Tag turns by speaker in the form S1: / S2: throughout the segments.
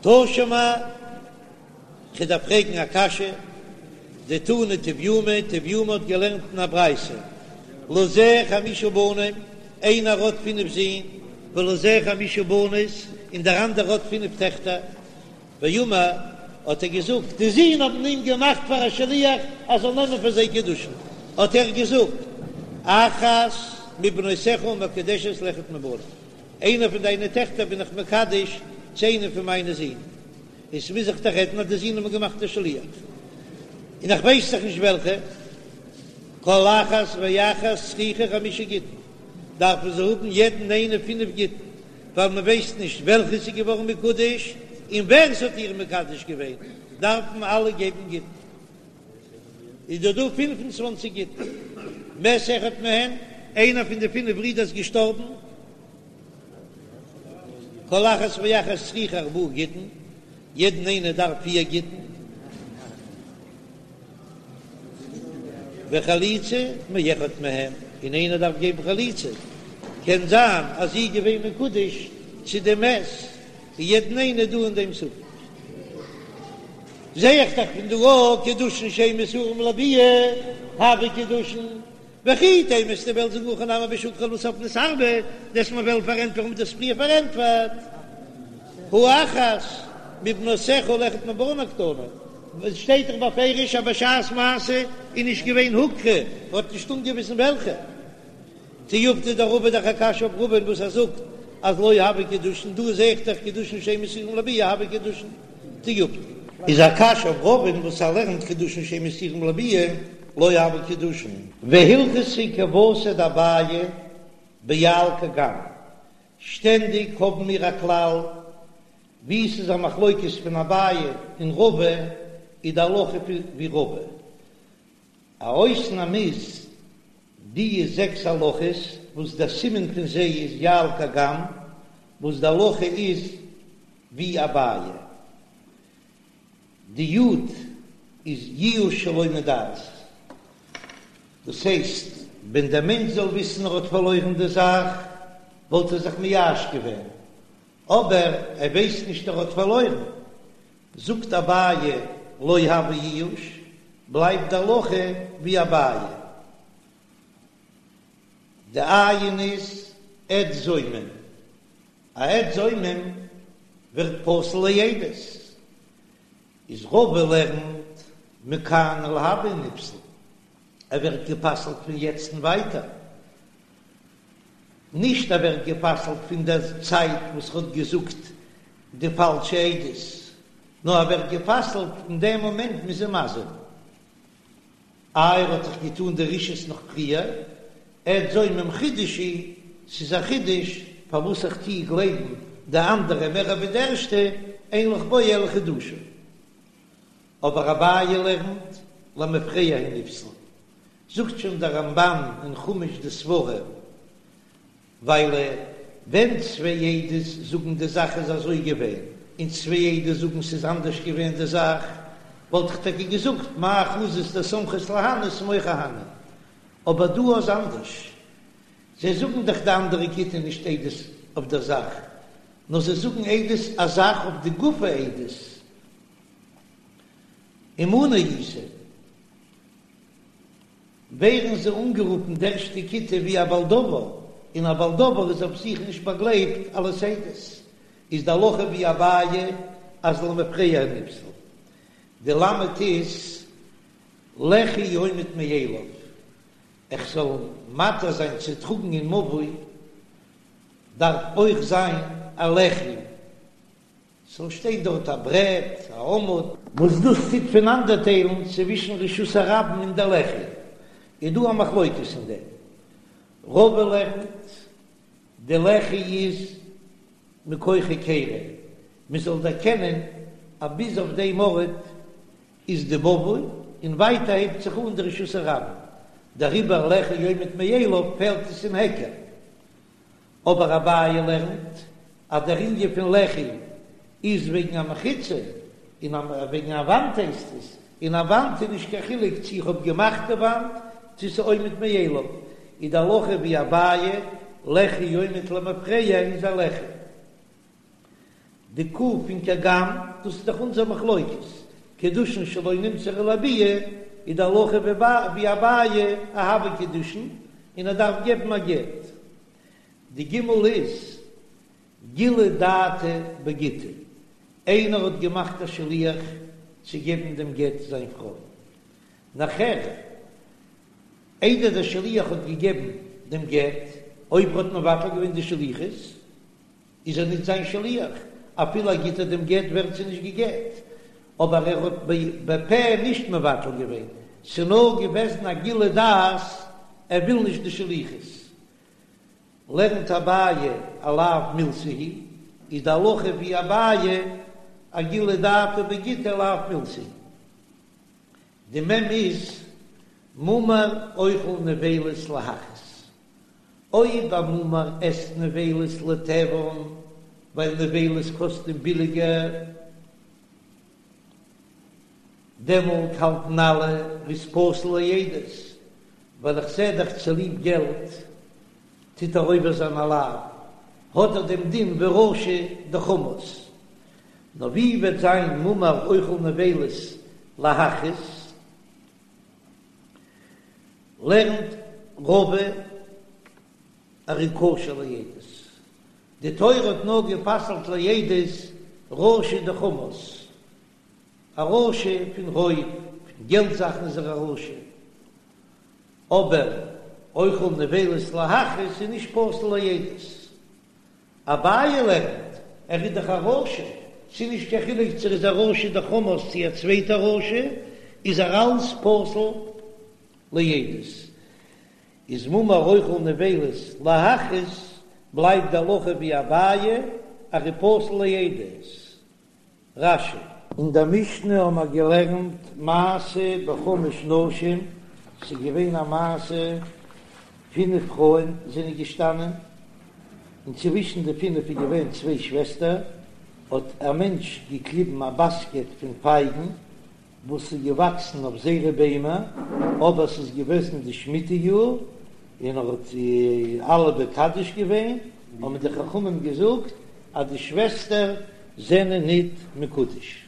S1: תא שמע, כ'דארף פרעגן א קשיא, דתני טביומי, טביומי האט געלערנט אין א ברייתא, לזה חמשה בנים, איינער האט פינף זין, ולזה חמשה בנות, און דער אנדערער האט פינף טעכטער, ואמר, האט ער געזאגט, די זין האבן אים געמאכט פאר א שליח ער זאל נעמען פאר זיי קידושין, האט ער געזאגט, אחת מבנותיך מקודשת לאחד מבני, איינער פון דיינע טעכטער בין איך מקדש צו איינעם פון מיינע זין, און ס'מוז זיך דאך רעדן אז די זין האבן געמאכט א שליח, און איך ווייס דאך נישט וועלכע, כל אחת ואחת צריכה חמשה גיטין, דארפן זיי האבן יעדן איינע פינף גיטין, ווייל מען ווייסט נישט וועלכע ס'איז געווארן מקודש און ווער ס'האט איר מקדש געווען, דארפן אלע געבן גיטין. איז דא דא 25 גיטין. מת אחד מהן, איינער פון די פינף ברידער איז געשטארבן, כל אחת ואחת צריכה ארבעה גיטין, יעדן איינער דארף פיר גיטין, וחליצה מאחד מהם, און איינער דארף געבן חליצה, קען זיין אז זי איז געווען מקודש צו דעם מת, און יעדן איינער דא אין דעם ספק. זע איך דאך פון דא אויך קידושין שאין מסורים לביאה, הוו קידושין, וכי תימא וועסטו וועלן זאגן הכא נמי בשהוכרו ולבסוף נתערבו, דו'סט מיר וועלן פארענטפערן ווי דו האסט פריער פארענטפערט, הא אחת מבנותיך לאחד מבני קתני, עס שטייט דאך בפירוש אז בשעת מעשה איז נישט געווען הוכרו, מ'האט נישט אנגעוויזן וועלכע. תיובתא דרבא דאך א קשיא אויף רבא'ן וואס ער זאגט אז לא הוו קידושין, דא זעה איך דאך קידושין שאין מסורים לביאה הוו קידושין. תיובתא. איז א קשיא אויף רבא'ן וואס ער לערנט קידושין שאין מסורים לביאה לא הוו קידושין. והלכתא כוותיה דאביי ביע"ל קג"ם, שטענדיג האבן מיר א כלל ווי ס'איז א מחלוקת פון אביי און רבא איז די הלכה ווי רבא. א אויסנאם איז די זעקס הלכות וואס דער סימן פון זיי איז יע"ל קג"ם וואס די הלכה איז ווי אביי. די יו"ד איז ייאוש שלא מדעת, דאס הייסט ווען דער מענטש זאל וויסן ער האט פארלוירן די זאך וואלט ער זיך מייאש געווען, אבער ער ווייסט נישט ער האט פארלוירן, זאגט אביי לא הוי ייאוש, בלייבט די הלכה ווי אביי. די עי"ן איז עד זומם, א עד זומם ווערט פסול לעדות, איז רבא לערנט מכאן ולהבא נפסל, ער ווערט גע'פסל'ט פון יעצט און ווייטער, נישט ער ווערט גע'פסל'ט פון דער צייט וואס ער האט געזאגט די פאלשע עדות, נאר ער ווערט גע'פסל'ט אין דעם מאמענט מ'איז אים מזים. איי ער האט דאך געטאן די רשעות נאך פריער, עד זומם חידוש הוא, ס'איז א חידוש פארוואס איך טוה גלייבן די אנדערע מער ווי די ערשטע, אין לך בו אלא חידושו. אבער אביי לערנט למפרע הוא נפסל, זאגט שוין דער רמב"ן אין חומש די סברא, ווייל ווען צוויי עדות זאגן די זאך איז אזוי געווען, און צוויי עדות זאגן ס'איז אנדערש געווען די זאך, וואלט איך טאקע געזאגט מאי חזית דסמכת להני סמוך אהני. אבער דא איז אנדערש, זיי זאגן דאך די אנדערע כיתה נישט עדות אויף דער זאך, נאר זיי זאגן עדות א זאך אויף די גוף העדות, ומנא איתא. ווערן זיי אנגערופן די ערשטע כיתה ווי א בעל דבר, און א בעל דבר איז אויף זיך נישט באגלייבט אלס עדות, איז די הלכה ווי אביי אז למפרע נפסל. די למד איז לחי עומד מאליו, איך זאל מתיר זיין צו טראגן אין מבוי דארף אויך זיין א לחי. ס'זאל שטיין דארט א ברעט, א עמוד. וואס דאס טוט פונאנדערטיילן צווישן רשות הרבים און דער לחי, איז דא א מחלוקת אין דעם. רבא לערנט, די לחי איז מכח היכרא, מען זאל דערקענען אז ביז אויף דעם ארט איז די מבוי, און ווייטער הייבט זיך אן די רשות הרבים, דעריבער לחי עומד מאליו פעלט עס אין היכר. אבער אביי לערנט אז דער ענין פון לחי איז וועגן א מחיצה, און וועגן א וואנט הייסט עס, און א וואנט איז נישט קיין חילוק צו איך האב געמאכט די וואנט צו ס'איז עומד מאליו, איז די הלכה ווי אביי, לחי עומד למפרע איז א לחי. די ק' פון כגם, דאס איז דאך אונזער מחלוקת, קידושין שלא נמסרו לביאה, איז די הלכה ווי אביי אז הוו קידושין, און ער דארף געבן א גט. די ג' איז גילוי דעתיה בגיטא, איינער האט געמאכט א שליח צו געבן דעם גט זיין פרוי, נאכער איידער דער שליח האט געגעבן דעם גט, אויב ער האט מבטל געווען די שליחות, איז ער ניט זיין שליח, אפילו ער גיט איר דעם גט ווערט זי נישט גע'גט, אבער ער האט בפה נישט מבטל געווען, ס'נאר געוועזן א גילוי דעת ער וויל נישט די שליחות. לערנט אביי א לאו מילתא היא, איז די הלכה ווי אביי א גילוי דעתיה בגיטא לאו מילתא היא. די מ' איז מומר אוכל נבילות להכעיס. אויב א מומר עסט נבילות לתיאבון ווייל נבילות קאסט אים ביליגער, דעמאלט האלטן אלע ער איז פסול לעדות, ווייל איך זע דאך צוליב געלט טוט ער עובר זיין א לאו, האט ער דעם דין ווי רשע דחמס. נאר ווי וועט זיין מומר אוכל נבילות להכעיס? לערנט רבא ער איז כשר לעדות. די תורה האט נאר גע'פסל'ט לעדות רשע דחמס, א רשע פון רויב, פון געלט זאכן איז ער א רשע, אבער אוכל נבילות להכעיס איז נישט פסול לעדות. אביי לערנט, ער איז דאך א רשע, ס'איז נישט קיין חילוק צו ער איז א רשע דחמס צו א צווייטע רשע, איז ער אלץ פסול לעדות. איז מומר אוכל נבילות להכעיס, בלייבט די הלכה ווי אביי, ער איז פסול לעדות. רש"י. אין דער משנה האבן מיר געלערנט מעשה בחמש נשים, ס'איז געווען א מעשה, פינף פרויען זענען געשטאנען, און צווישן די פינף איז געווען צוויי שוועסטער, האט א מענטש געקליבן א באסקעט פון פייגן וואס איז געוואקסן אויף זייערע ביימער, אבער ס'איז געוועזן די שמיטה יאר, און ער האט אלע מקדש געווען, האבן די חכמים געזאגט אז די שוועסטער זענען ניט מקודש.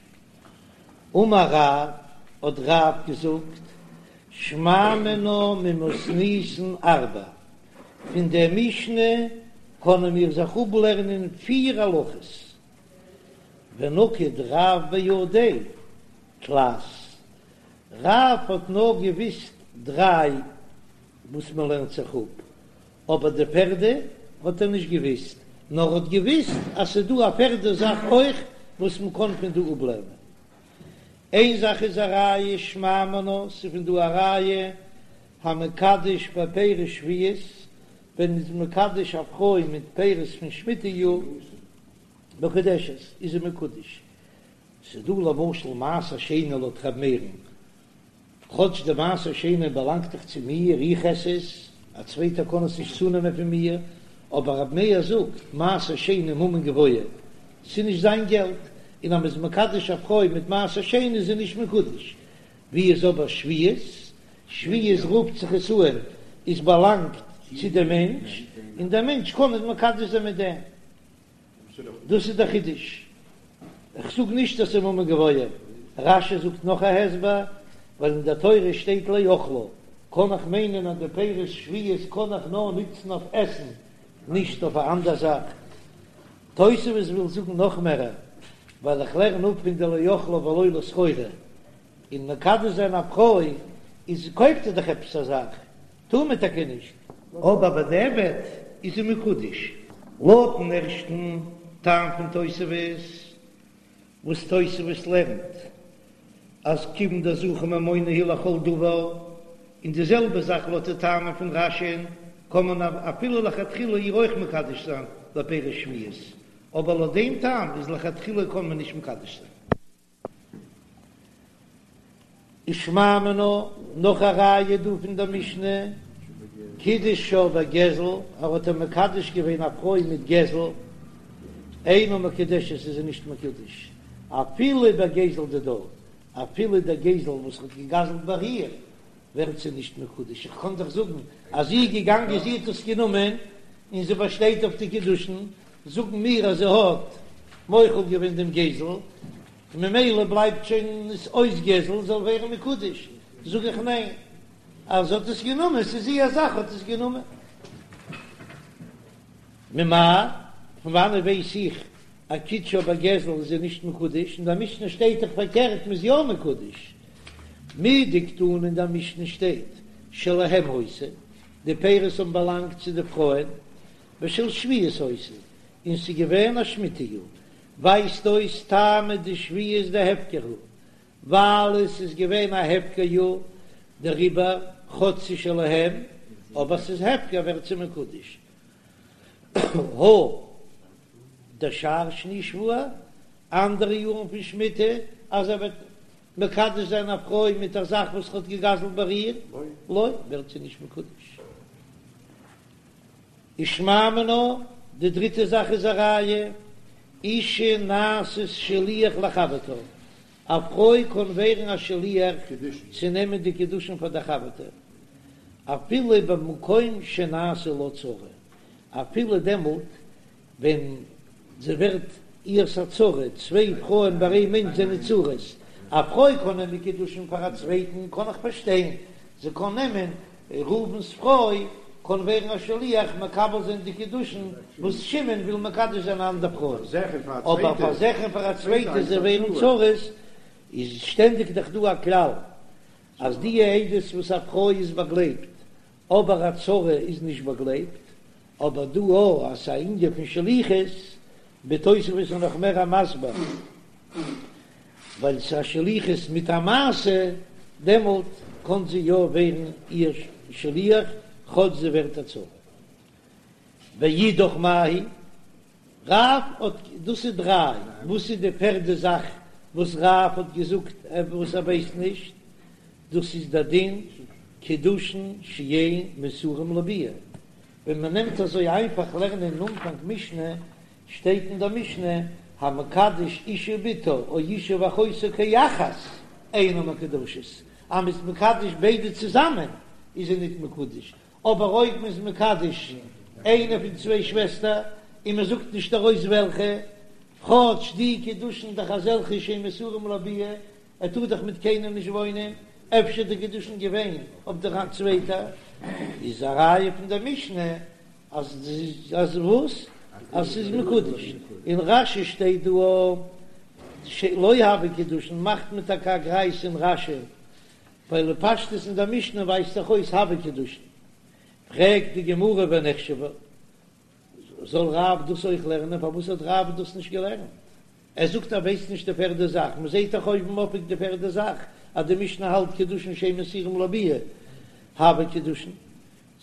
S1: אמר רב, האט רב געזאגט, שמע מינה ממתניתין ארבע, פון דער משנה קענען מיר זיך אפלערנען פיר הלכות, ונקט רב בידיה תלת, רב האט נאר געוויסט דריי וואס מען לערנט זיך אפ, אבער די פערדע האט ער נישט געוויסט, נאר ער האט געוויסט אז ס'איז דא א פערדע זאך אויך וואס מען קען פון דא אפלערנען. איין זאך איז א ראיה שמע מינה, ס'איז פון דא א ראיה המקדש בפירות שביעית, ווען מ'איז מקדש א פרוי מיט פירות פון שמיטה יאר, מקודשת, איז זי מקודש. ס'איז דא למשל מעשר שני לויט ר' מאיר'ן, כאטש די מעשר שני באלאנגט דאך צו מיר, איך עס עס, א צווייטער קען עס נישט צונעמען פון מיר, אבער ר' מאיר זאגט, מעשר שני ממון גבוה, ס'איז נישט זיין געלט, און אז מ'איז מקדש א פרוי מיט מעשר שני איז זי נישט מקודש. ווי איז אבער שביעית? שביעית רופט זיך עס אן, עס באלאנגט צו דעם מענטש, און דער מענטש קען נישט מקדש זיין מיט דעם. דאס איז דער חידוש. איך זאג נישט אז ס'איז ממון גבוה. רש"י זאגט נאך א הסבר, ווייל אין דער תורה שטייט לאכלה, קען איך מיינען אז די פירות שביעית קען איך נאר נוצן אויף עסן, נישט אויף א אנדער זאך. תוספות וויל זאגן נאך מערער, ווייל איך לערן אפ פון די לאכלה ולא לסחורה, און מקדש זיין א פרוי איז קויפט ער דאך עפעס א זאך, טאר מען טאקע נישט. אבער בדיעבד איז זי מקודש. לויטן ערשטן טעם פון תוספות, וואס תוספות לערנט אז כיוון דזכה ממונא הוא לכל דבר, און די זעלבע זאך לויט די טעמים פון רש"י'ן, קען מען אפילו לכתחילה איר אויך מקדש זיין בפירות שביעית, אבער לויט דעם טעם איז לכתחילה קען מען נישט מקדש זיין. ושמע מינה, נאך א ראיה דא פון דער משנה, קידשה בגזל, ער האט איר מקדש געווען א פרוי מיט גזל, אינה מקודשת איז זי נישט מקודש, אפילו בגזל דידה, אפילו דער גזל וואס האט געגזלט ביי איר, ווערט זי נישט מקודש, איך קען דאך זאגן אז זי איז געגאנגען זי האט עס גענומען און זי באשטייט אויף די קידושין, זאגן מיר אז זי האט. מוחל געווען דעם גזל, און ממילא בלייבט שוין עס אויס גזל, זאל ווערן מקודש, זאג איך ניין, אז זי האט עס גענומען, ס'איז איר זאך, האט עס גענומען. ממאי? פון וואנעט ווייס איך אז קידשה בגזל איז זי נישט מקודש? אין דער משנה שטייט דאך פארקערט מ'איז יא מקודש. מדקתני אין דער משנה שטייט שלהם היתה, די פירות האבן באלאנגט צו די פרויען, ושל שביעית היתה, און ס'איז געווען א שמיטה יאר, ווייזט אויס טעמא דשביעית דהפקר הוא, ווייל עס איז געווען א הפקר יאר, דעריבער כאטש ס'איז שלהם, אבער ס'איז הפקר ווערט זי מקודש. הא דשאר שני שבוע, אנדערע יארן פון שמיטה, אז ער וועט מקדש זיין א פרוי מיט א זאך וואס ער האט געגזלט ביי איר, לא, ווערט זי נישט מקודש. ושמע מינה, די דריטע זאך איז א ראיה, אישה נעשית שליח לחברתה, א פרוי קען ווערן א שליח צו נעמען די קידושין פאר די חבר'טע, אפילו במקום שנעשה לה צרה, אפילו דעמאלט ווען זי ווערט איהר'ס א צרה, צוויי פרויען ביי איין מענטש זענען צרות, א פרוי קען נעמען קידושין פאר א צווייטן קען איך פארשטיין, זי קען נעמען ראובן'ס פרוי קען ווערן א שליח מקבל זיין די קידושין וואס שמעון וויל מקדש זיין א אנדער פרוי, אבער פאר זיך און פאר א צווייטע זיי ווערן צרות, איז שטענדיג דאך דא א כלל אז די עדות וואס א פרוי איז באגלייבט אבער א צרה איז נישט באגלייבט, אבער דא או אז ס'איז א ענין פון שליחות, בתוספות איז נאך מער א מסביר, ווייל ס'איז א שליחות מיט א מעשה, דעמאלט קען זי יא ווערן איר שליח כאטש זי ווערט א צרה. ואידך מאי היא? רב האט, דאס איז דריי, וואס איז די פערדע זאך וואס רב האט געזאגט וואס ער ווייסט נישט? דאס איז דער דין קידושין שאין מסורים לביאה, ווען מען נעמט אזוי איינפאך לערנען אין אנפאנג משנה, שטייט אין דער משנה המקדש אשה ובתה או אשה ואחותה כאחת אינן מקודשות, אז מען איז מקדש ביידע צוזאמען איז זי ניט מקודש, אבער אויב מען איז מקדש איינע פון צוויי שוועסטער און מען זאגט נישט ארויס וועלכע, כאטש די קידושין דאך אזעלכע שאין מסורים לביאה, ער טאר דאך מיט קיינעם נישט וואוינען, אפשר די קידושין געווען אויף דער צווייטע, איז א ראיה פון דער משנה אז אז וואס? אז ס'איז מקודש. אין רש"י שטייט דא שלא הוו קידושין, מאכט מען טאקע א גרייז אין רש"י, ווייל בפשטות אין דער משנה ווייזט דאך אויס הוו קידושין. פרעגט די גמרא ונחשבה, זאל רב דאס אויך לערנען? פארוואס האט רב דאס נישט געלערנט? ער זאגט ער ווייסט נישט די פערדע זאך, מען זעט דאך אויבן אויף די פערדע זאך אז די משנה האלט קידושין שאין מסורים לביאה הוו קידושין,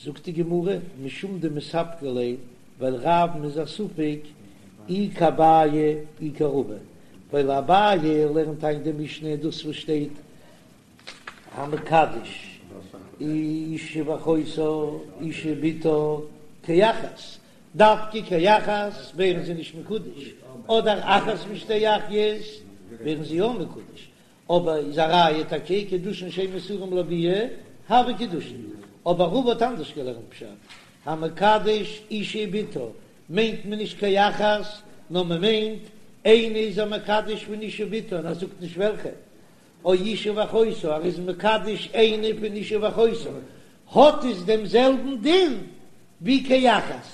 S1: זאגט די גמרא משום דמספקא ליה, ווייל רב'ן איז א ספק אי כאביי אי כרבא, ווייל אביי לערנט איין די משנה דאס וואס שטייט המקדש אשה ואחותה אשה ובתה כאחת, דווקא כאחת ווערן זיי נישט מקודש, אדער אחת משתי אחיות ווערן זיי יא מקודש, אבער איז א ראיה טאקע קידושין שאין מסורים לביאה הוו קידושין, אבער רבא האט אנדערש געלערנט פשט, המקדש אשה ובתה מיינט מען נישט כאחת, נאר מען מיינט איינע איז ער מקדש פון אשה ובתה און ער זאגט נישט וועלכע, או אשה ואחותה, ער איז מקדש איינע פון אשה ואחותה, האט עס דעם זעלבן דין ווי כאחת,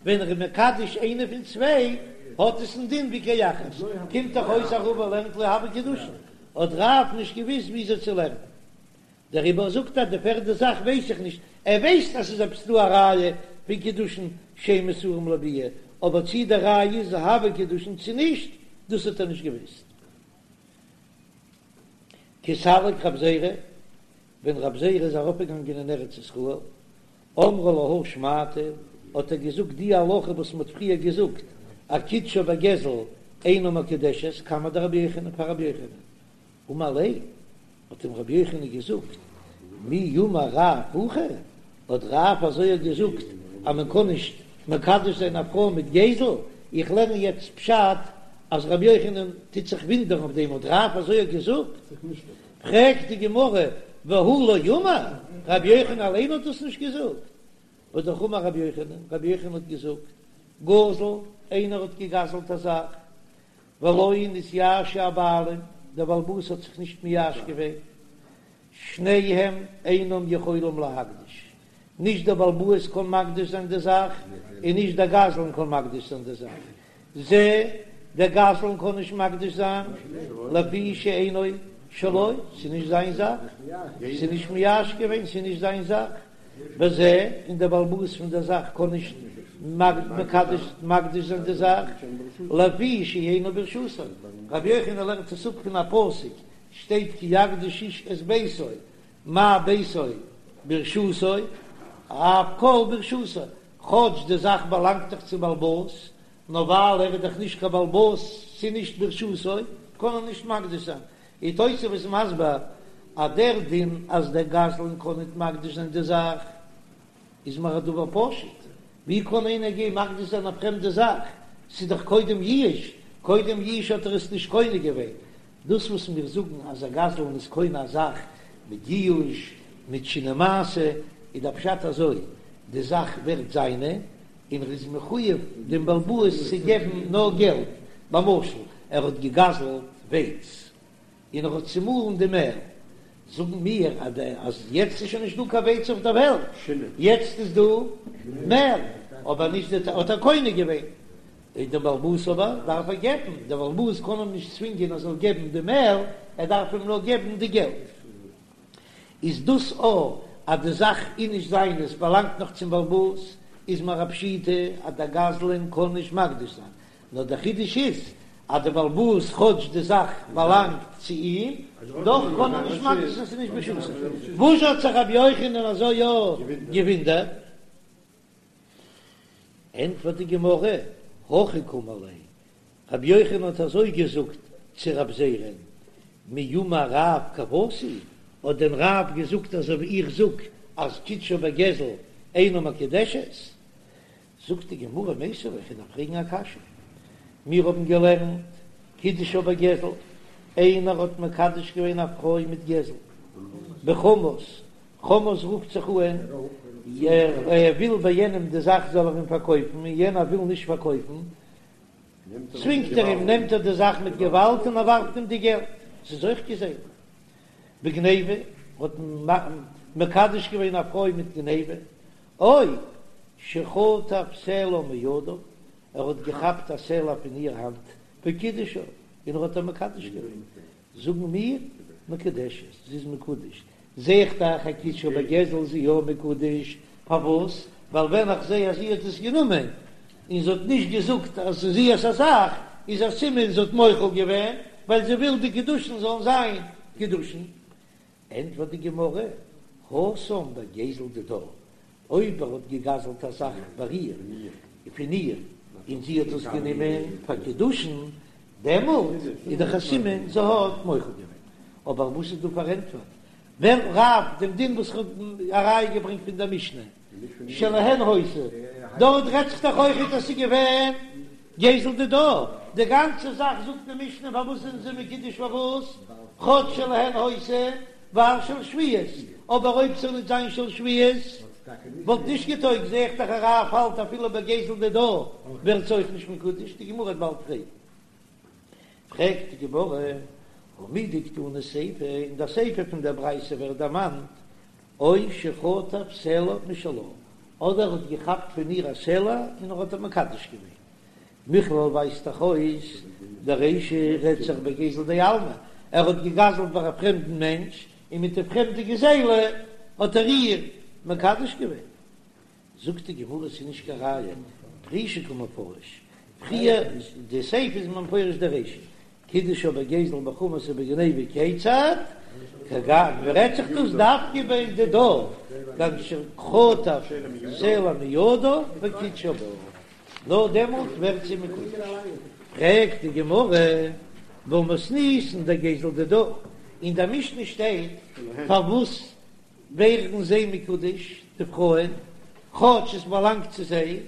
S1: ווען ער איז מקדש איינע פון צוויי, האט עס דעם דין ווי כאחת, קומט דאך אויס אז רבא לערנט לא הוו קידושין, האט רב נישט געוויסט וויאזוי צו לערנען, דעריבער זאגט ער די פערדע זאך ווייס איך נישט, ער ווייסט אז ס'איז עפעס דא א ראיה פון קידושין שאין מסורים לביאה, אבער צי די ראיה איז הוו קידושין צי נישט, דאס האט ער נישט געוויסט. כי סליק רב זירא, ווען רב זירא איז ארויפגעגאנגען אין ארץ ישראל, אמרה להא שמעתא, האט ער געזאגט די הלכה וואס מ'האט פריער געזאגט, אז קידשה בגזל אינה מקודשת, קמיה דרבי יוחנן פאר רבי יוחנן, אמר ליה, האט אים רבי יוחנן געזאגט, מי אמר רב הכי, האט רב אזוי געזאגט אז מען קען נישט מקדש זיין א פרוי מיט גזל, איך לערן יעצט פשט אז רבי יוחנן טוט זיך ווינדערן אויף דעם, האט רב אזוי געזאגט? פרעגט די גמרא, והוא לא אמר, רבי יוחנן אליין האט דאס נישט געזאגט? והא אמר רבי יוחנן, רבי יוחנן האט געזאגט, גזל, איינער האט געגזלט א זאך. ולא נתייאשו הבעלים, דער בעל הבית האט זיך נישט מייאש געווען, שניהם אינם יכולים להקדיש, נישט דער בעל הבית קען מקדיש זיין די זאך, און נישט דער גזלן קען מקדיש זיין די זאך, זה, דער גזלן קען נישט מקדיש זיין, לפי שאינו שלו, ס'איז נישט זיין זאך, ס'איז נישט מייאש געווען, ס'איז נישט זיין זאך, וזה, און דער בעל הבית פון דער זאך קען נישט מקדש מקדיש זיין די זאך, לפי שאינו ברשותו. רבי יוחנן לערנט עס אפ פון א פסוק, שטייט כי יקדיש איש את ביתו, מה ביתו ברשותו, אף כל ברשותו, כאטש די זאך באלאנגט דאך צום בעל הבית, נאר ווייל ער איז דאך נישט קיין בעל הבית, ס'איז נישט ברשותו, קען ער נישט מקדיש זיין. און תוספות איז מסביר אז דער דין אז דער גזלן קען ניט מקדיש זיין די זאך איז מיר א דבר פשוט, ווי קען איינער גיין מקדיש זיין א פרעמדע זאך, ס'איז דאך קודם ייאוש, קודם ייאוש האט ער עס נישט קונה געווען, דאס וואס מיר זאגן אז א גזלן איז קונה א זאך מיט ייאוש, מיט שינוי מעשה, איז דער פשט אזוי, די זאך ווערט זיינע, און ער איז מחויב דעם בעל הבית צו געבן נאר געלט, למשל ער האט געגזלט ווייץ און ער האט צומאלן די מעל, זאגן מיר אז יעצט איז שוין נישט דא קיין ווייץ אויף דער וועלט, יעצט איז דא מעל, אבער נישט די האט ער קונה געווען, און דעם בעל הבית אבער דארף ער געבן, דער בעל הבית קען אים נישט צווינגען ער זאל געבן די מעל, ער דארף אים נאר געבן די געלט. איז דאס א אז די זאך איז נישט זיינע, עס באלאנגט נאך צום בעל הבית, איז מיר א פשיטא אז דער גזלן קען נישט מקדיש זיין, נאר דער חידוש איז אז דער בעל הבית כאטש די זאך באלאנגט צו אים, דאך קען ער נישט מקדיש זיין ס'איז נישט ברשותו. וואס האט זיך רבי יוחנן אזוי יא געווינדערט? ענטפערט די גמרא, הכי קאמר ליה, רבי יוחנן האט אזוי געזאגט צו רב זירא'ן, מי אמר רב כוותי, האט דען רב געזאגט אזוי ווי איך זאג אז קידשה בגזל אינה מקודשת? זאגט די גמרא מיתיבי, איך וועל דיר פרעגן א קשיא, מיר האבן געלערנט קידשה בגזל, איינער האט מקדש געווען א פרוי מיט גזל, בחמס, חמס רופט זיך אן, ער וויל ביי יענעם די זאך זאל ער אים פארקויפן, און יענער וויל נישט פארקויפן, צווינגט ער אים, נעמט ער די זאך מיט געוואלד און ער ווארפט אים די געלט, ס'איז אויך גזילה. בגניבה, האט מקדש געווען א פרוי מיט גניבה, או שחטף סלע מידה, ער האט געכאפט א סלע פון איר האנט, וקידשה, און ער האט איר מקדש געווען. זאגן מיר, מקודשת, זי איז מקודש, זע איך דאך אז קידשה בגזל איז זי יא מקודש, פארוואס? ווייל ווען איך זע אז זי האט עס גענומען און זי האט נישט געזאגט אז ס'איז איהר'ס א זאך, איז א סימן זי האט מוחל געווען, ווייל זי וויל די קידושין זאלן זיין קידושין. ענטפערט די גמרא, התם בגזל דידה, אויב ער האט געגזלט א זאך ביי איר, פון איר, און זי האט עס גענומען פאר קידושין, דעמאלט איז דאך א סימן זי האט מוחל געווען. אבער וואס איז דא פארענטפערט ווען רב דעם דין וואס כ'האב א ראיה געברענגט פון דער משנה שלהן היתה, דארט רעדט זיך דאך אויכעט אז ס'איז געווען גזל דידה, די גאנצע זאך זאגט די משנה פארוואס זענען זיי מקודש פארוואס כאטש שלהן היתה ווייל של שביעית, אבער אויב ס'זאל נישט זיין של שביעית וואלט נישט געטויגט, זע איך דאך אז רב האלט אפילו בגזל דידה ווערט זי אויך נישט מקודש, די גמרא וועט באלד פרעגן. פרעגט די גמרא, הא מדקתני סיפא, אין דער סיפא פון דער ברייתא ווערט דערמאנט או שחטף סלע משלה, אדער ער האט געכאפט פון איר א סלע און ער האט איר מקדש געווען. מכלל ווייזט דאך אויס דרישא רעדט זיך בגזל דעלמא, ער האט געגזלט ביי א פרעמדן מענטש און מיט די פרעמדע גזילה האט ער איר מקדש געווען. זאגט די גמרא ס'איז נישט קיין ראיה, פרושי קא מפרש, פריער די סיפא איז מפרש די רישא, קידשה בגזל בחמס ובגניבה כיצד, כגון רעדט זיך דאס דווקא בדידה, כגון שחטף סלע מידה וקידשה בה, נאר דעמאלט ווערט זי מקודש. פרעגט די גמרא, והא מתניתין דגזל דידה, אין די משנה שטייט פארוואס ווערן זיי מקודש די פרויען, כאטש עס באלאנגט צו זיי,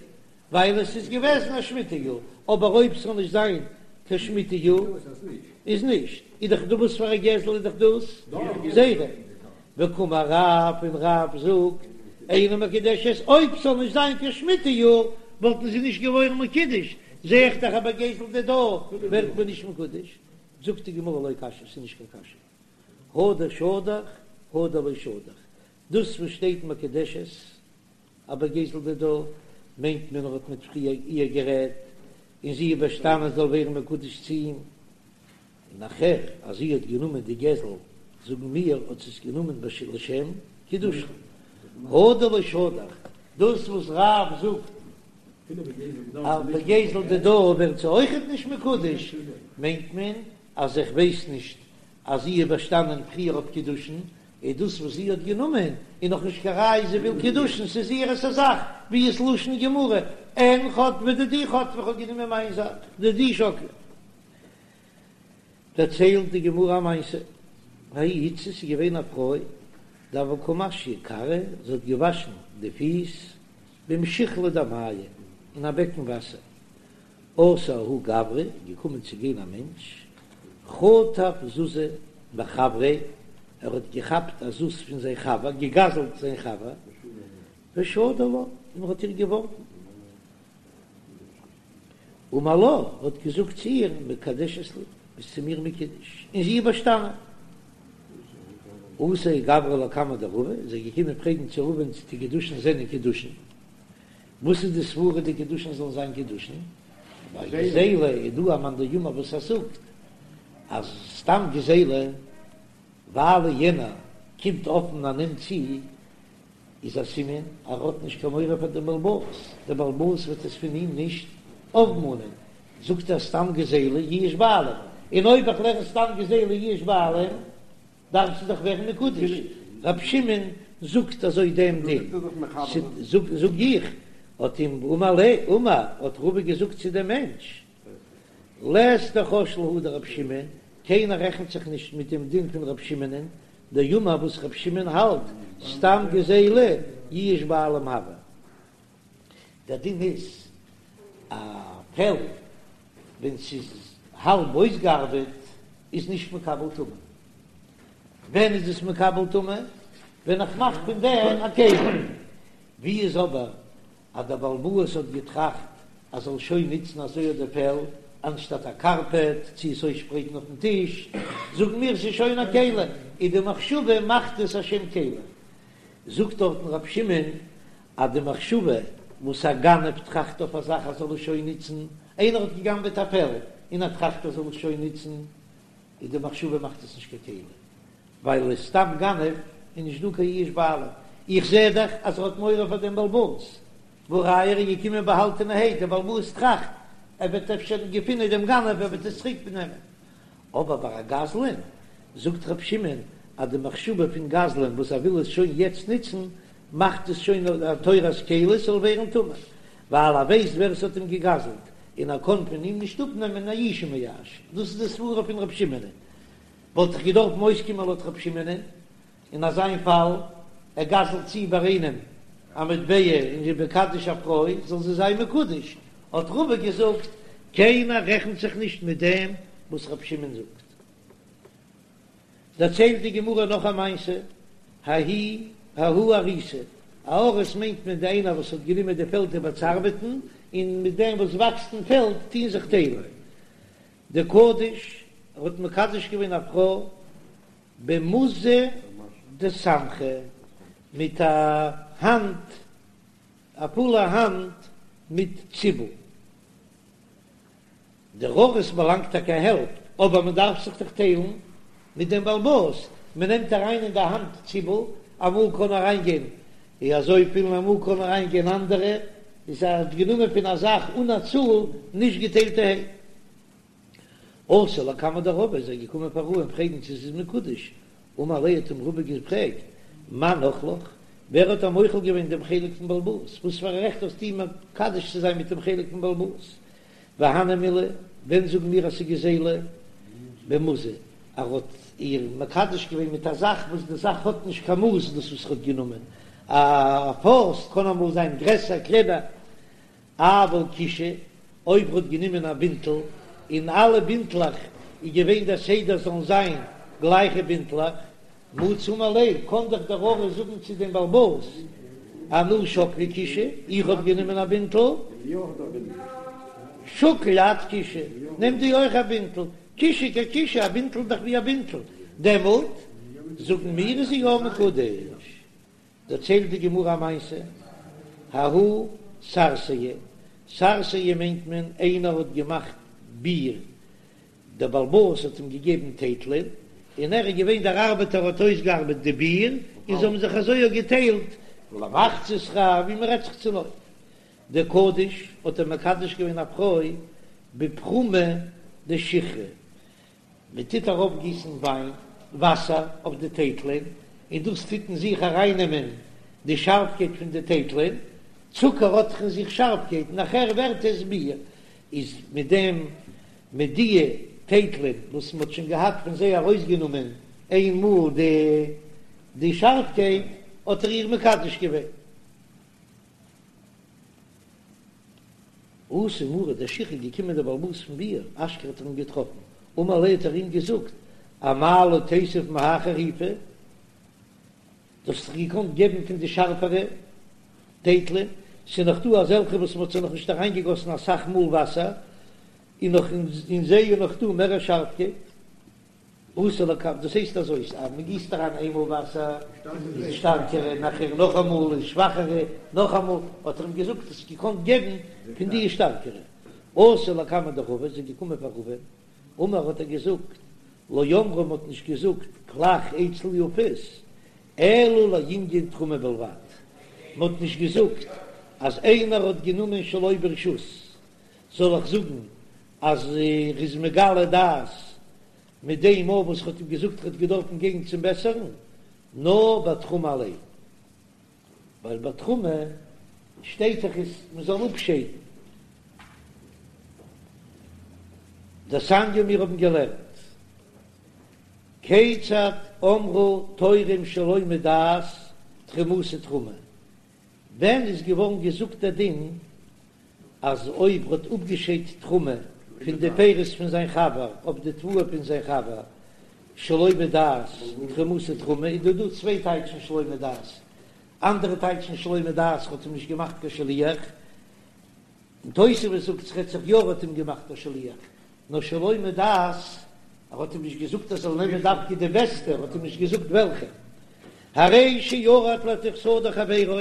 S1: ווייל עס איז געוועזן א שמיטה יאר, אבער אויב ס'זאל נישט זיין קיין שמיטה יאר איז נישט, איז דאך דא וואס פאר א גזל איז דאך דאס גזילה, וקאמר רב און רב זאגט אינה מקודשת, אויב ס'זאל נישט זיין קיין שמיטה יאר וואלטן זיי נישט געווארן מקודש, זע איך דאך אז בגזל דידה ווערט מען נישט מקודש, זאגט די גמרא לא קשיא, ס'איז נישט קיין קשיא, הא דשדך הא דלא שדך, דאס וואס שטייט מקודשת אז בגזל דידה מיינט מען ער האט מיט פריער איר גערעדט און זי איז באשטאנען זאל ווערן מקודש צו אים, און נאכער אז זי האט גענומען די גזל זאגן מיר האט זי עס גענומען לשם קידושין, הא דלא שדך, דאס וואס רב זאגט אז בגזל דידה ווערט זי אויכעט נישט מקודש מיינט מען אז איך ווייס נישט אז זי איז באשטאנען פריער אויף קידושין, איז דאס וואס זי האט גענומען איז נאך נישט קיין ראיה זי וויל קידושין, ס'איז איהר'ס א זאך, ווי איז לשון גמרא, אין חטפי דידי חטפי איך האב גענומען מיין זאך, דידי שקלי. דערציילט די גמרא א מעשה, ההיא איתתא ס'איז געווען א פרוי דהוה קא משיא כרעה, זי האט געוואשן די פיס במשיחלא דמיא אין א בעקן וואסער, אתא ההוא גברא, געקומען צו גיין א מענטש, חטף זוזא מחבריה, ער האט געכאפט א זוז פון זיין חבר, געגזלט זיין חבר, ושדי לה, און ער האט איר געווארגן. אמר לה, האט געזאגט צו איר, מקדשת לי, ביסט צו מיר מקודש, און זי איז באשטאנען. אתא ההוא גברא לקמיה דרבא, איז ער געקומען פרעגן צו רבא'ן צו די קידושין זענען קידושין. וואס איז די סברה די קידושין זאלן זיין קידושין? ווייל גזילה איז דא א מאן דאמר וואס ער זאגט אז סתם גזילה ווייל יענער קומט אפן און נעמט צו איז א סימן אז ער האט נישט קיין מורא פאר דעם בעל הבית, דער בעל הבית וועט עס פון אים נישט אויפמאנען, זאגט ער סתם גזילה יאוש בעלים, און אויב איך לערן סתם גזילה יאוש בעלים דארף זי דאך ווערן מקודש, רב שמעון זאגט אזוי דעם דין, זאג איך, האט אים אמר ליה, אמר, האט רבא געזאגט צו דעם מענטש, לית דחש להא דרב שמעון, קיינער רעכנט זיך נישט מיט דעם דין פון רב שמעונ'ען, דאמר וואס רב שמעון האלט, סתם גזילה יאוש בעלים הוי. דער דין איז, א פעל ווען ס'איז האלב אויסגעארבעט איז נישט מקבל טומאה. ווען איז עס מקבל טומאה? ווען איך מאך פון דעם א כלי. ווי איז אבער אז דער בעל הבית האט געטראכט אז זאל שוין נוצן אזוי אט די פעל אנשטאט א קארפעט צו עס אויסשפרייטן אויפן טיש, זאגן מיר ס'איז שוין א כלי, און די מחשבה מאכט עס א שם כלי. זאגט דארטן רב שמעון אז די מחשבה וואס א גנב טראכט אויף א זאך אז זאל עס שוין נוצן, איינער האט געגנבעט א פעל און ער טראכט ער זאל עס שוין נוצן, איז די מחשבה מאכט עס נישט קיין כלי, ווייל איז סתם גנב איז נישט דא קיין יאוש בעלים, איך זע דאך אז ער האט מורא פאר דעם בעל הבית, והא ראיה ער איז געקומען באהאלטענערהייט, דער בעל הבית טראכט ער וועט אפשר געפינען דעם גנב ער וועט עס צוריק נעמען, אבער ביי א גזלן זאגט ר' שמעון אז די מחשבה פון גזלן וואס ער וויל עס שוין יעצט נוצן מאכט עס שוין א תורת כלי ס'זאל ווערן טמא, ווייל ער ווייסט ווער עס האט אים געגזלט און ער קען פון אים נישט אפנעמען יאושי מייאש, דאס איז די סברה פון ר' שמעונ'ען, וואלט איך געדארפן אויסקומען לויט ר' שמעונ'ען אין אזיין פאל, ער גזל'ט צו ביי איינעם א מטבע און איז מקדש א פרוי זאל זי זיין מקודש, האט רבא געזאגט קיינער רעכנט זיך נישט מיט דעם וואס ר' שמעון זאגט. דערציילט די גמרא נאך א מעשה, ההיא ההוא אריסא, א אריס מיינט מען די איינער וואס האט גענומען די פעלד איבער צו ארבעטן, און מיט דעם וואס וואקסט אין פעלד טוהן זיך טיילן. דקדיש, ער האט מקדש געווען א פרוי במוזא דסמכא, מיט א האנט, א פולע האנט מיט ציבל. דער אריס באלאנגט טאקע א העלפט, אבער מען דארף זיך דאך טיילן מיט דעם בעל הבית, מען נעמט אריין אין די האנט ציבל, אמאל קען אריין גיין אזויפיל און אמאל קען אריין גיין אנדערע, איז ער האט גענומען פון א זאך אן א צאל נישט געטיילטערהייט. אתא לקמיה דרבא איז ער געקומען פאר רבא'ן פרעגן צו ס'איז מקודש, אמר ליה האט אים רבא געפרעגט, מאן אחלך, ווער האט דיר מוחל געווען דעם חלק פון בעל הבית, וואס פאר א רעכט האסטו מקדש צו זיין מיט דעם חלק פון בעל הבית? והני מילי, ווען זאגן מיר אז ס'איז גזילה? במוזא, ער האט איר מקדש געווען מיט א זאך וואס די זאך האט נישט קיין מאס, דאס וואס ער האט גענומען א פויסט קען אמאל זיין גרעסער קלענער, אבל כישא, אויב ער האט גענומען א בינטל, און אלע בינטלעך איז געווען דער סדר זאלן זיין גלייכע בינטלעך, מצי אמר ליה, קאן דאך דער אריס זאגן צו דעם בעל הבית, אנא שקלי כישא, איך האב גענומען א בינטל. שקיל את כישא, נעם דו אויך א בינטל, כישא ככישא, א בינטל איז דאך ווי א בינטל, דעמאלט זאגן מיר איז זי יא מקודש. דערציילט די גמרא א מעשה, ההוא סרסיא, סרסיא מיינט מען איינער האט געמאכט ביר, דער בעל הבית האט אים געגעבן טייטלען, און ער איז געווען דער ארבעטער האט אויסגעארבעט די ביר, און זיי האבן זיך אזוי אויך געטיילט למחצה שכר, ווי מען רעדט זיך צונויף. דקדיש האט ער מקדש געווען א פרוי בפרומא דשיכרא, מען טוט ארויפגיסן וויין, וואסער, אויף די טייטלען, און דאס טוט אין זיך ארייננעמען די שארפקייט פון די טייטלען, צוקער האט דאך אין זיך שארפקייט, נאכער ווערט עס ביר, איז מיט דעם מיט די טייטלען וואס מען האט שוין געהאט פון זיי ארויסגענומען איין מאל די די שארפקייט, האט ער איר מקדש געווען. אתא מריה דשיכרא געקומען דער בעל הבית פון ביר, אשכחיה האט ער אים געטראפן, אמר ליה האט ער אים געזאגט, אמאי לא תיתיב מהאי חריפא, דו האסט דאך געקאנט געבן פון די שארפערע טייטלען, ס'איז נאך דא אזעלכע וואס מ'האט זיי נאך נישט אריינגעגאסן אסאך מאל וואסער, און נאך אין זיי איז נאך דא מער א שארפקייט. אתא לקמיה, דאס הייסט אזוי, אז מ'גיסט אריין איינמאל וואסער איז שטארקערע, נאכער נאכאמאל איז שוואכערע, נאכאמאל, האט ער אים געזאגט האסט געקאנט געבן פון די שטארקערע. אתו לקמיה דרבא, איז ער געקומען פאר רבא, אמר האט ער געזאגט, לא אמרו מ'האט נישט געזאגט כלך אצל יפות, אלא לענין תרומה בלבד, מ'האט נישט געזאגט אז איינער האט גענומען שלא ברשות, זאל איך זאגן אז ער איז מגלה דעת מיט דעם אויף וואס כ'האט אים געזאגט ער האט געדארפן גיין צום בעסערן, נאר ביי תרומה אליין, ווייל ביי תרומה שטייט דאך איז מ'זאל אפשיידן. דתניא מיר האבן געלערנט, כיצד אמרו תורם שלא מדעת תרומתו תרומה, ווען איז געווארן געזאגט דער דין אז אויב ר'האט אפגעשיידט תרומה פון די פירות פון זיין חבר אויף די תבואה פון זיין חבר שלא מדעת תרומתו תרומה, איז דא דא צוויי טייטשן שלא מדעת, אנדערע טייטשן שלא מדעת ר'האט אים נישט געמאכט קיין שליח, און תוספות זאגט ס'רעדט זיך יא ער האט אים געמאכט א שליח, נאר שלא מדעת, ער האט אים נישט געזאגט ער זאל נעמען דווקא די בעסטע, ער האט אים נישט געזאגט וועלכע. הרי שירד לתוך שדה חברו,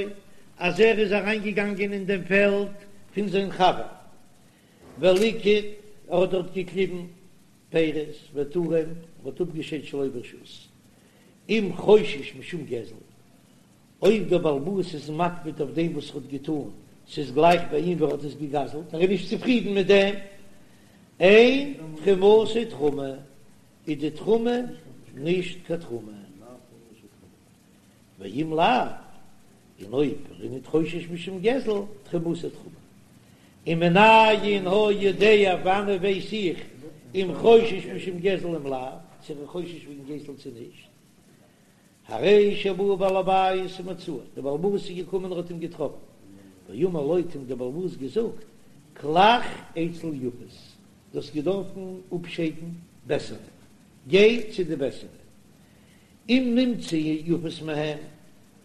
S1: אז ער איז אריינגעגאנגען אין דעם פעלד פון זיין חבר, וליקט, ער האט דארט געקליבן פירות, ותרם, ער האט אפגעשיידט שלא ברשות, אם חושש משום גזל, אויב דער בעל הבית איז מקפיד אויף דעם וואס ער האט געטאן, ס'איז גלייך ביי אים ווי ער האט עס געגזלט, ער איז נישט צופרידן מיט דעם, אין תרומתו תרומה, איז די תרומה נישט קיין תרומה. ואם לאו, און אויב ער איז ניט חושש משום גזל, תרומתו תרומה. ומנין היה יודע, וואנען ווייס איך אם חושש משום גזל אם לאו, צו ער איז חושש וועגן גזל צו נישט. הרי שבא בעל הבית ומצאו, דער בעל הבית איז געקומען און האט אים געטראפן, ואמר לו האט אים דער בעל הבית געזאגט, כלך אצל יפות, דו האסט געדארפן אפשיידן בעסערע, גיי צו די בעסערע, אם נמצא יפות מהם,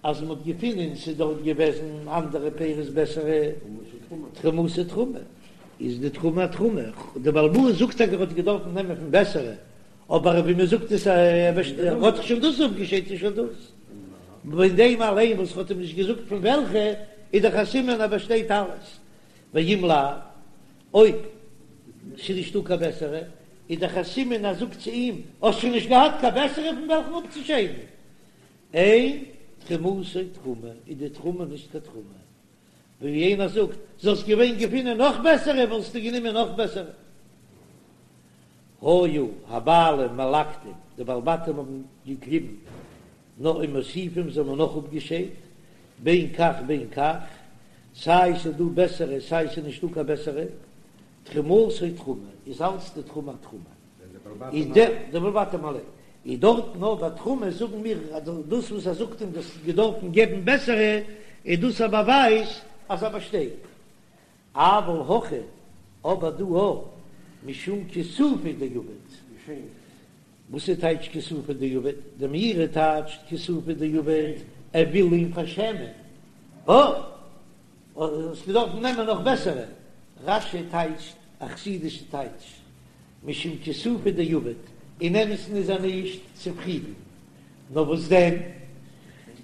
S1: אז מען האט געפונען ס'איז דארט געוועזן אנדערע פירות בעסערע, תרומתו תרומה, איז די תרומה א תרומה, דער בעל הבית זאגט טאקע ער האט געדארפן נעמען פון בעסערע, אבער ווי מען זאגט עס ער האט דאך שוין דאס אפגעשיידט איז שוין דאס, פון דעם אליין וואס האט אים נישט געזאגט פון וועלכע, איז דאך א סימן אז באשטייט אלעס, ואם לאו, אויב ס'איז נישטא קיין בעסערע, איז דאך א סימן אז זאגט צו אים, האסט שוין נישט געהאט קיין בעסערע פון וועלכן אפצושיידן, אין תרומתו תרומה, איז די תרומה נישט קיין תרומה. ווי איינער זאגט, זאלסט געווען געפינען נאך בעסערע וואלסטו גענומען נאך בעסערע. היו הבעלים מלקטים, די בעלי בתים האבן געקליבן נאך ומוסיפים זיי האבן נאך אפגעשיידט, בין כך בין כך, סיי ס'איז דא בעסערע סיי ס'איז נישטא קיין בעסערע, תרומתו תרומה, איז אלץ די תרומה א תרומה. איז דער די בעלי בתים אליין איז דארט נאר ביי תרומה זאגן מיר אז דאס וואס ער זאגט אים דו האסט געדארפן געבן בעסערע איז דאס א באווייז אז ער באשטייט אבל הכא אבער דא א משום כיסופא דעביד וואס איז טייטש כיסופא דעביד די מאירי טייטשט כיסופא דעביד ער וויל אים פארשעמען אה האסט געדארפן נעמען נאך בעסערע רש"י טייטשט. א חסידישע טייטש, משום כיסופא דעביד, אין אמת'ן איז ער נישט צופרידן, נאר וואס דען,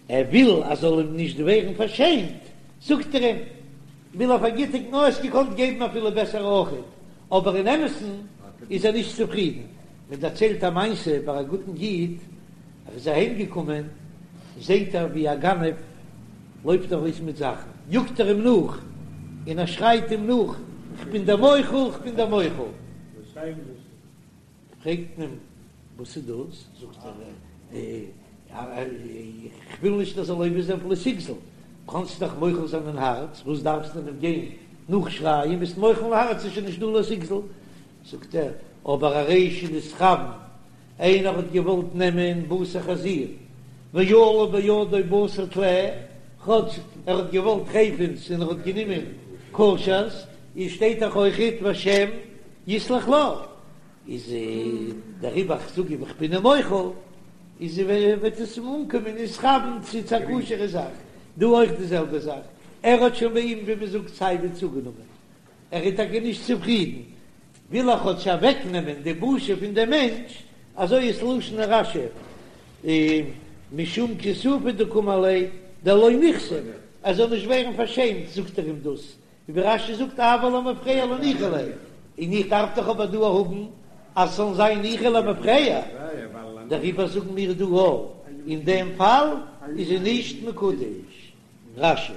S1: ער וויל אז זאל אים נישט ווערן פארשעמט, זאגט ער אים, וויל ער פארגיטיגן, נאר האסט געקאנט געבן אפילו בעסער אויכעט, אבער אין אמת'ן איז ער נישט צופרידן. מען דערציילט א מעשה ביי א גוטן איד, ער איז אהיים געקומען, זעהט ער ווי א גנב לויפט ארויס מיט זאכן, יאגט ער אים נאך, און ער שרייט אים נאך, כ'בין דיר מוחל, כ'בין דיר מוחל. פרעגט מען אים, וואס איז דאס? זאגט ער, איך וויל נישט ער זאל עובר זיין אויף לא תגזול, קאנסט דאך מוחל זיין אין הארץ, וואס דארפסטו אים גיין נאכשרייען, ביסט מוחל אין הארץ איז שוין נישט דא לא תגזול, זאגט ער, אבער הרי שנתכוון, איינער האט געוואלט נעמען בשר חזיר, ועלה בידו בשר טלה, כאטש ער האט געוואלט טרפה'נס און ער האט גענומען כשר'ס, איז שטייט דאך אויכעט והשם יסלח לו, איז דעריבער איך זאג אים איך בין אים מוחל, איז וועט עס אים אנקומען נתכוון צו צו א כשר'ע זאך, דא אויך די זעלבע זאך, ער האט שוין ביי אים ווי מען זאגט סייווי צוגענומען, ער איז טאקע נישט צופרידן, וויל ער כאטש אוועקנעמען די בושה פון דעם מענטש, אזוי איז לשון רש"י, משום כיסופא דקאמר ליה דלא נכסף, ער זאל נישט ווערן פארשעמט זאגט ער אים דאס, ווי רש"י זאגט אבל למפרע לא ניחא ליה, און איך דארף דאך אבער דא האבן אז ס'זאל זיין ניחא למפרע, דעריבער זאגן מיר דא אין דעם פאל איז זי נישט מקודש. רש"י.